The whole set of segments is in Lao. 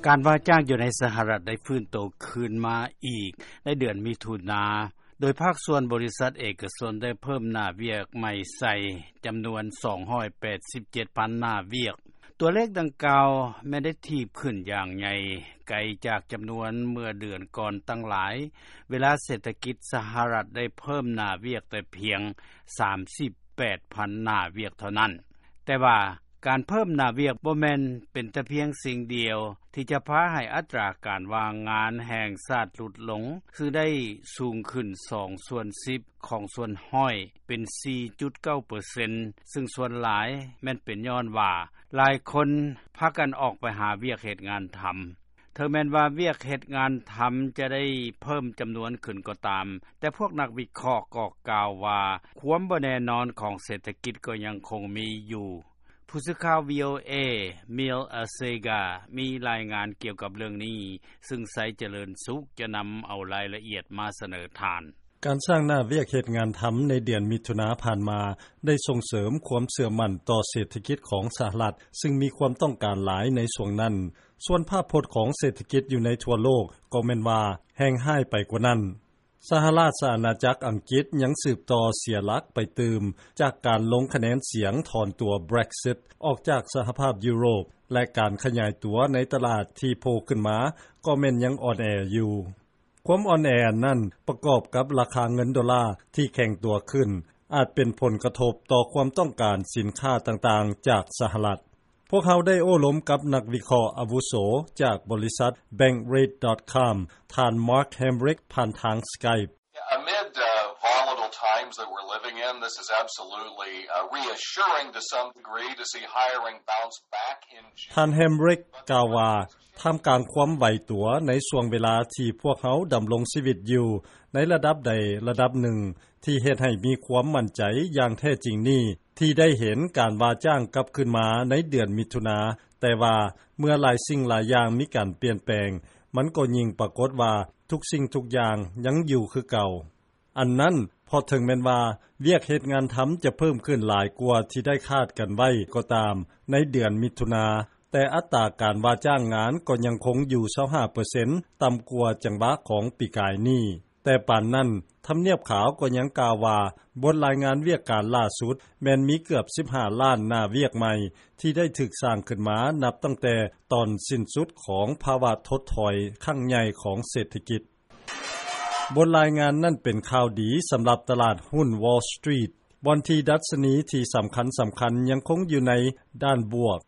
ການວ່າຈ້າງຢູ່ໃນສະຫະລັດ ໄດ້ຟື້ນໂຕຄືນມາອີກໃນເດືອນມິຖຸນາ ໂດຍພາກສ່ວນບໍລິສັດເອກະຊົນ ໄດ້ເພີ່ມໜ້າວຽກໃໝ່ໃສ່ຈຳນວນ ສອງຮ້ອຍແປດສິບເຈັດພັນໜ້າວຽກ. ຕົວເລກດັ່ງກ່າວແມ່ນໄດ້ຖີບຂຶ້ນຢ່າງໃຫຍ່ ໄກຈາກຈຳນວນເມື່ອເດືອນກ່ອນຕັ້ງຫຼາຍ ເວລາເສດຖະກິດສະຫະລັດ ໄດ້ເພີ່ມໜ້າວຽກແຕ່ພຽງ ສາມສິບແປດພັນໜ້າວຽກເທົ່ານັ້ນ. ແຕ່ວ່າການເພີ່ມໜ້າວຽກ ບໍ່ແມ່ນເປັນແຕ່ພຽງສິ່ງດຽວ ທີ່ຈະພາໃຫ້ອັດຕາການວ່າງງານແຫ່ງຊາດຫຼຸດລົງ ຊຶ່ງໄດ້ສູງຂຶ້ນສອງສ່ວນສິບຂອງສ່ວນຮ້ອຍ ເປັນສີ່ຈຸດເກົ້າເປີເຊັນ ຊຶ່ງສ່ວນຫຼາຍແມ່ນເປັນຍ້ອນວ່າ ຫຼາຍຄົນພາກັນອອກໄປຫາວຽກເຮັດງານທຳ. ເຖິງແມ່ນວ່າວຽກເຮັດງານທຳຈະໄດ້ເພີ່ມຈຳນວນຂຶ້ນກໍຕາມ, ແຕ່ພວກນັກວິເຄາະກໍກ່າວວ່າ ຄວາມບໍ່ແນ່ນອນຂອງເສດຖະກິດກໍຍັງຄົງມີຢູ່. ຜູ້ສື່ຂ່າວ VOA Mil Asega ມີລາຍງານກ່ຽວກັບເລື່ອງນີ້, ຊຶ່ງໄຊຈະເລີນສຸກຈະນຳເອົາລາຍລະອຽດມາສະເໜີທ່ານ. ການສ້າງໜ້າວຽກເຮັດງານທຳໃນເດືອນມິຖຸນາຜ່ານມາ ໄດ້ສົ່ງເສີມຄວາມເຊື່ອໝັ້ນຕໍ່ເສດຖະກິດຂອງສະຫະລັດ ຊຶ່ງມີຄວາມຕ້ອງການຫຼາຍໃນຊ່ວງນັ້ນ. ສ່ວນພາບພົດຂອງເສດຖະກິດຢູ່ໃນທົ່ວໂລກກໍແມ່ນວ່າແຮງຮ້າຍໄປກວ່ານັ້ນ. ສະຫະລາຊະອານາຈັກອັງກິດຍັງສືບຕໍ່ເສຍຫຼັກໄປຕື່ມ ຈາກການລົງຄະແນນສຽງຖອນຕົວ Brexit ອອກຈາກສະຫະພາບຢູໂຣບ ແລະ ການຂະຫຍາຍຕົວໃນຕະຫຼາດທີ່ໂຜ່ຂຶ້ນມາກໍແມ່ນຍັງອ່ອນແອຢູ່. ຄວາມອ່ອນແອອັນນັ້ນປະກອບກັບລາຄາເງິນໂດລາທີ່ແຂງຕົວຂຶ້ນ ອາດເປັນຜົນກະທົບຕໍ່ຄວາມຕ້ອງການສິນຄ້າຕ່າງໆຈາກສະຫະລັດ. ພວກເຮົາໄດ້ໂອ້ລົມກັບນັກວິເຄາະອາວຸໂສຈາກບໍລິສັດ Bankrate.com ທ່ານ Mark Hamrick ຜ່ານທາງ Skype. Amid, uh, volatile times that we're living in, this is absolutely, uh, reassuring to some degree to see hiring bounce back in June. ທ່ານ Hamrick ກ່າວວ່າ ທ່າມກາງຄວາມໄຫວຕົວໃນຊ່ວງເວລາທີ່ພວກເຮົາດຳລົງຊີວິດຢູ່ໃນລະດັບໃດລະດັບໜຶ່ງ ທີ່ເຮັດໃຫ້ມີຄວາມໝັ້ນໃຈຢ່າງແທ້ຈິງນີ້ ທີ່ໄດ້ເຫັນການວ່າຈ້າງກັບຄືນມາໃນເດືອນມິຖຸນາ, ແຕ່ວ່າເມື່ອຫຼາຍສິ່ງຫຼາຍຢ່າງມີການປ່ຽນແປງ, ມັນກໍຍິ່ງປາກົດວ່າທຸກສິ່ງທຸກຢ່າງຍັງຢູ່ຄືເກົ່າ. ອັນນັ້ນ ເພາະເຖິງແມ່ນວ່າວຽກເຮັດງານທຳຈະເພີ່ມຂຶ້ນຫຼາຍກວ່າທີ່ໄດ້ຄາດກັນໄວ້ກໍຕາມໃນເດືອນມິຖຸນາ, ແຕ່ອັດຕາການວ່າຈ້າງງານກໍຍັງຄົງຢູ່ຊາວຫ້າເປີເຊັນ ຕ່ຳກວ່າຈັງຫວະຂອງປີກາຍນີ້. ແຕ່ປານນັ້ນ, ທຳນຽບຂາວກໍຍັງກ່າວວ່າ ບົດລາຍງານວຽກການລ່າສຸດແມ່ນມີເກືອບສິບຫ້າລ້ານໜ້າວຽກໃໝ່ ທີ່ໄດ້ຖືກສ້າງຂຶ້ນມານັບຕັ້ງແຕ່ຕອນສິ້ນສຸດຂອງພາວະຖົດຖອຍຄັ້ງໃຫຍ່ຂອງເສດຖະກິດ. ບົດລາຍງານນັ້ນເປັນຂ່າວດີສຳລັບຕະຫຼາດຫຸ້ນ Wall Street ບ່ອນທີ່ດັດຊະນີທີ່ສຳຄັນໆຍັງຄົງຢູ່ໃນດ້ານບວກ.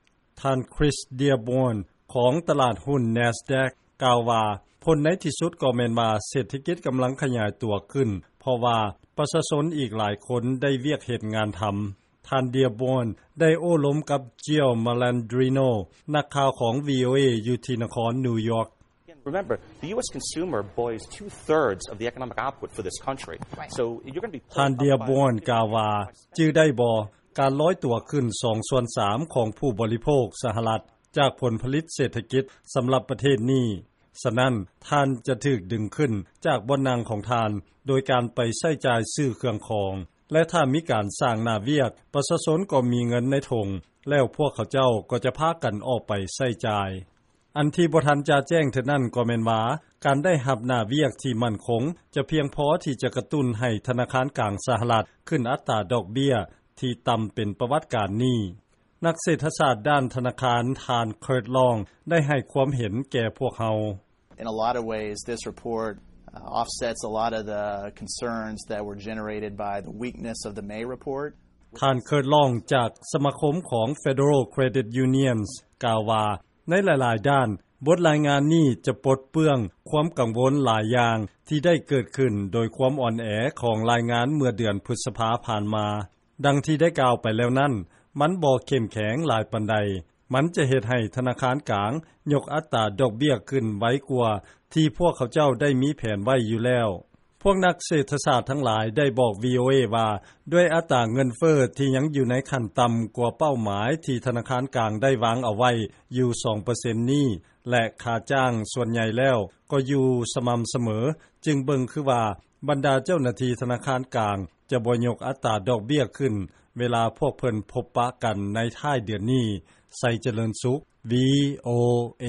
ທ່ານ Chris Dearborn ຂອງຕະຫຼາດຫຸ້ນ Nasdaq ກ່າວວ່າ ຜົນໃນທີ່ສຸດກໍແມ່ນວ່າເສດຖະກິດກຳລັງຂະຫຍາຍຕົວຂຶ້ນ ເພາະວ່າປະຊາຊົນອີກຫຼາຍຄົນໄດ້ວຽກເຮັດງານທຳ. ທ່ານ Dearborn ໄດ້ໂອ້ລົມກັບ Gio Malandrino ນັກຂ່າວຂອງ VOA ຢູ່ທີ່ນະຄອນນິວຢອກ. Remember, the U S consumer buoys two-thirds of the economic output for this country. Right. So you're gonna be ທ່ານ Dearborn ກ່າວວ່າ ຈື່ໄດ້ບໍ່? ການລອຍຕົວຂຶ້ນສອງສ່ວນສາມຂອງຜູ້ບໍລິໂພກສະຫະລັດ ຈາກຜົນຜະລິດເສດຖະກິດສຳລັບປະເທດນີ້. ສະນັ້ນ, ທ່ານຈະຖືກດຶງຂຶ້ນຈາກບ່ອນນັ່ງຂອງທ່ານ ໂດຍການໄປໃຊ້ຈ່າຍຊື້ເຄື່ອງຂອງ ແລະ ຖ້າມີການສ້າງໜ້າວຽກ, ປະຊາຊົນກໍມີເງິນໃນຖົງ ແລ້ວພວກເຂົາເຈົ້າກໍຈະພາກັນອອກໄປໃຊ້ຈ່າຍ. ອັນທີ່ບໍ່ທັນຈະແຈ້ງເທື່ອນັ້ນກໍແມ່ນວ່າ ການໄດ້ຮັບໜ້າວຽກທີ່ໝັ້ນຄົງ ຈະພຽງພໍທີ່ຈະກະຕຸ້ນໃຫ້ທະນາຄານກາງສະຫະລັດຂຶ້ນອັດຕາດອກເບ້ຍທີ່ຕ່ຳເປັນປະຫວັດການນີ້. ນັກເສດຖະສາດດ້ານທະນາຄານ ທ່ານ Kurt Long ໄດ້ໃຫ້ຄວາມເຫັນແກ່ພວກເຮົາ. In a lot of ways, this report, uh, offsets a lot of the concerns that were generated by the weakness of the May report. ທ່ານ Kurt Long ຈາກສະມາຄົມຂອງ Federal Credit Unions ກ່າວວ່າ ໃນຫຼາຍໆດ້ານ, ບົດລາຍງານນີ້ຈະປົດເປື້ອງຄວາມກັງວົນຫຼາຍຢ່າງທີ່ໄດ້ເກີດຂຶ້ນໂດຍຄວາມອ່ອນແອຂອງລາຍງານເມື່ອເດືອນພຶດສະພາຜ່ານມາ. ດັ່ງທີ່ໄດ້ກ່າວໄປແລ້ວນັ້ນ, ມັນບໍ່ເຂັ້ມແຂງຫຼາຍປານໃດ. ມັນຈະເຮັດໃຫ້ທະນາຄານກາງຍົກອັດຕາດອກເບ້ຍຂຶ້ນໄວກວ່າທີ່ພວກເຂົາເຈົ້າໄດ້ມີແຜນໄວ້ຢູ່ແລ້ວ. ພວກນັກເສດຖະສາດທັງຫຼາຍໄດ້ບອກ VOA ວ່າ ດ້ວຍອັດຕາເງິນເຟີ້ທີ່ຍັງຢູ່ໃນຂັ້ນຕ່ຳກວ່າເປົ້າໝາຍທີ່ທະນາຄານກາງໄດ້ວາງເອົາໄວ້ຢູ່ສອງເປີເຊັນນີ້ ແລະ ຄ່າຈ້າງສ່ວນໃຫຍ່ແລ້ວກໍຢູ່ສະໝ່ຳສະເໝີ, ຈຶ່ງເບິ່ງຄືວ່າບັນດາເຈົ້າໜ້າທີ່ທະນາຄານກາງຈະບໍ່ຍົກອັດຕາດອກເບ້ຍຂຶ້ນ ເວລາພວກເພິ່ນພົບປະກັນໃນທ້າຍເດືອນນີ້. ໄຊຈະເລີນສຸກ VOA.